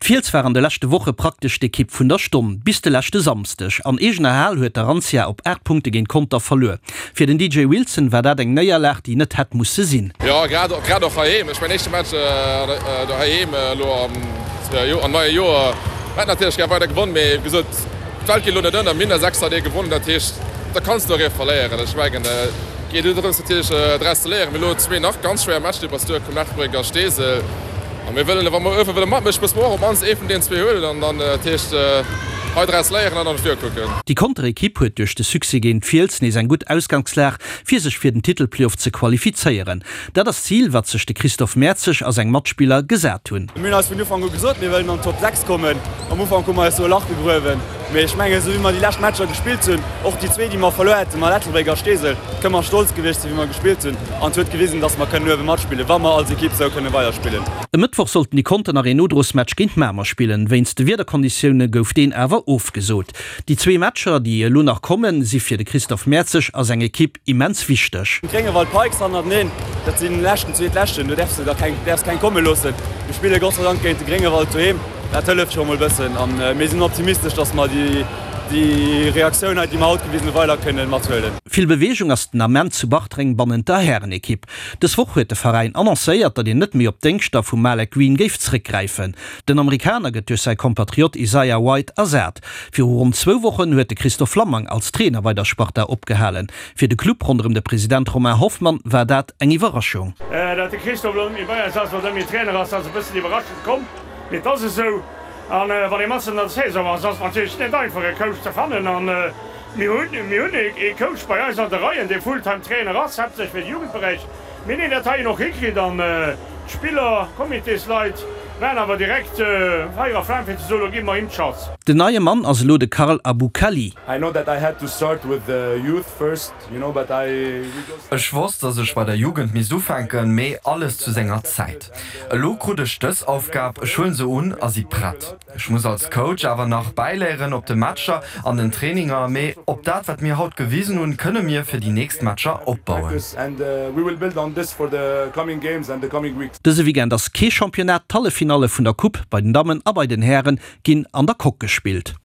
D'Fiels war an de leschte Woche praktesch d'Ekipp vun der Stonn, bis de leschte Samsdeg. An eegener Hal huet d'Arantia op 8 Punkte géint Conter verluer. Fir den DJ Wilson war dat eng Néierlag, déi net hätt musse sinn. Jo, grad grad och heiheem. Ech mäin éischte Match doheem elo am neie Joer. Mir hätten natierlech gär weider gewonn, mee wéi gesot, d'Welt geet elo net ënner. Mir hunn der 6 haut ee gewonnen, dat heescht, da kanns de och ee verléieren. Ech mengen, et geet elo drëms natierlech draus ze léieren. Mir hu elo zwee nach ganz schwéier Matcher, déi op eis duerkommen, Ettelbréck a Steesel. A mir wëllen, wa mer uewe wëlle matmëschen, musse mer och op d'mannst ee vun deenen zwee huelen an dann, dat heescht, hei draus léieren an an d'Vue kucken. Déi Conter Ekipp huet duerch de Succès géint d'Fiels nees eng gutt Ausgangslag, fir sech fir den Titelplayoff ze qualifizéieren. Dat ass d'Zil, wat sech de Christophe Mertzig a seng Matspiller gesat hunn. Mir hunn eis vun Ufank u gesot, mir wëllen an d'Top 6 kommen. Am Ufank hu mer eis do e Lach gegruewen, mee ech mengen, esou wéi mer déi lescht Matcher gespillt hunn, och déi zwee, déi mer verluer hätten, mat Ettelbréck a Steesel, kënne mer stolz gewiescht sinn, wéi mer gespillt hunn an et huet gewisen, dass mer kënnen uewe matspillen, wa mer als Ekipp esou kënne weiderspillen. E Mëttwoch sollten déi Conter nach een Nodrosmatch géint Mamer spillen. Wéinst de Wiederkonditioune gouf deen awer ofgesot. Déi zwee Matcher, déi elo nach kommen, si fir de Christophe Mertzig a seng Ekipp immens wichteg. Gréngewald Pikes hannerteneen, dat sinn leschten, zweetleschten, do däerfs de der keng, däerfs keng komme loossen. Mir spille Gott sei Dank géint de Gréngewald doheem, dat hëlleft scho mol bëssen an mir sinn optimistesch, dass mer déi déi Reaktioun hei, déi mer haut gewisen hunn, weider kënnen mathuelen. Vill Beweegung ass den Ament zu Bartreng bannent der Härenekipp. Dës Woch huet de Veräin annoncéiert, datt een net méi op d'Déngschter vum Malek Green géif zréckgräifen. Den Amerikaner gëtt duerch säi Kompatriot Isaiah White ersat. Viru ronn zwou Wochen huet de Christophe Flammang als Trainer bei der Sparta opgehalen. Fir de Club ronderëm de President Romain Hoffmann war dat eng Iwwerraschung. Datt de Christophe elo net méi bei eis ass oder net méi Trainer ass, ass e bëssen iwwerraschend komm, mee et ass esou. An wann ee matzen an der Saison ass, ass et natierlech net einfach e Coach ze fannen. An mir hunn, mir hunn ee Coach bei eis an de Reien, dee Fulltime Trainer ass, haaptsächlech fir de Jugendberäich, mee deen dat heien och hikritt. An d'Spiller, Comitésleit waren awer direkt Feier a Flam fir ze soen, elo gi mer him d'Chance. Den neie Mann ass elo de Karl Aboukali. I know that I had to start with the youth first. Ech wosst, dass ech bei der Jugend misst ufänken, mee alles zu senger Zäit. Elo krut ech dës Aufgab, ech huelen se un a si prett. Ech muss als Coach awer nach bäiléieren op de Matcher, an den Traininger, mee op dat wat mir haut gewisen hunn, kënne mir fir déi nächst Matcher opbauen. Dëse Weekend ass kee Championnat, d'Halleffinalle vun der Coupe bei den Dammen a bei den Häre ginn an der Coque gespillt.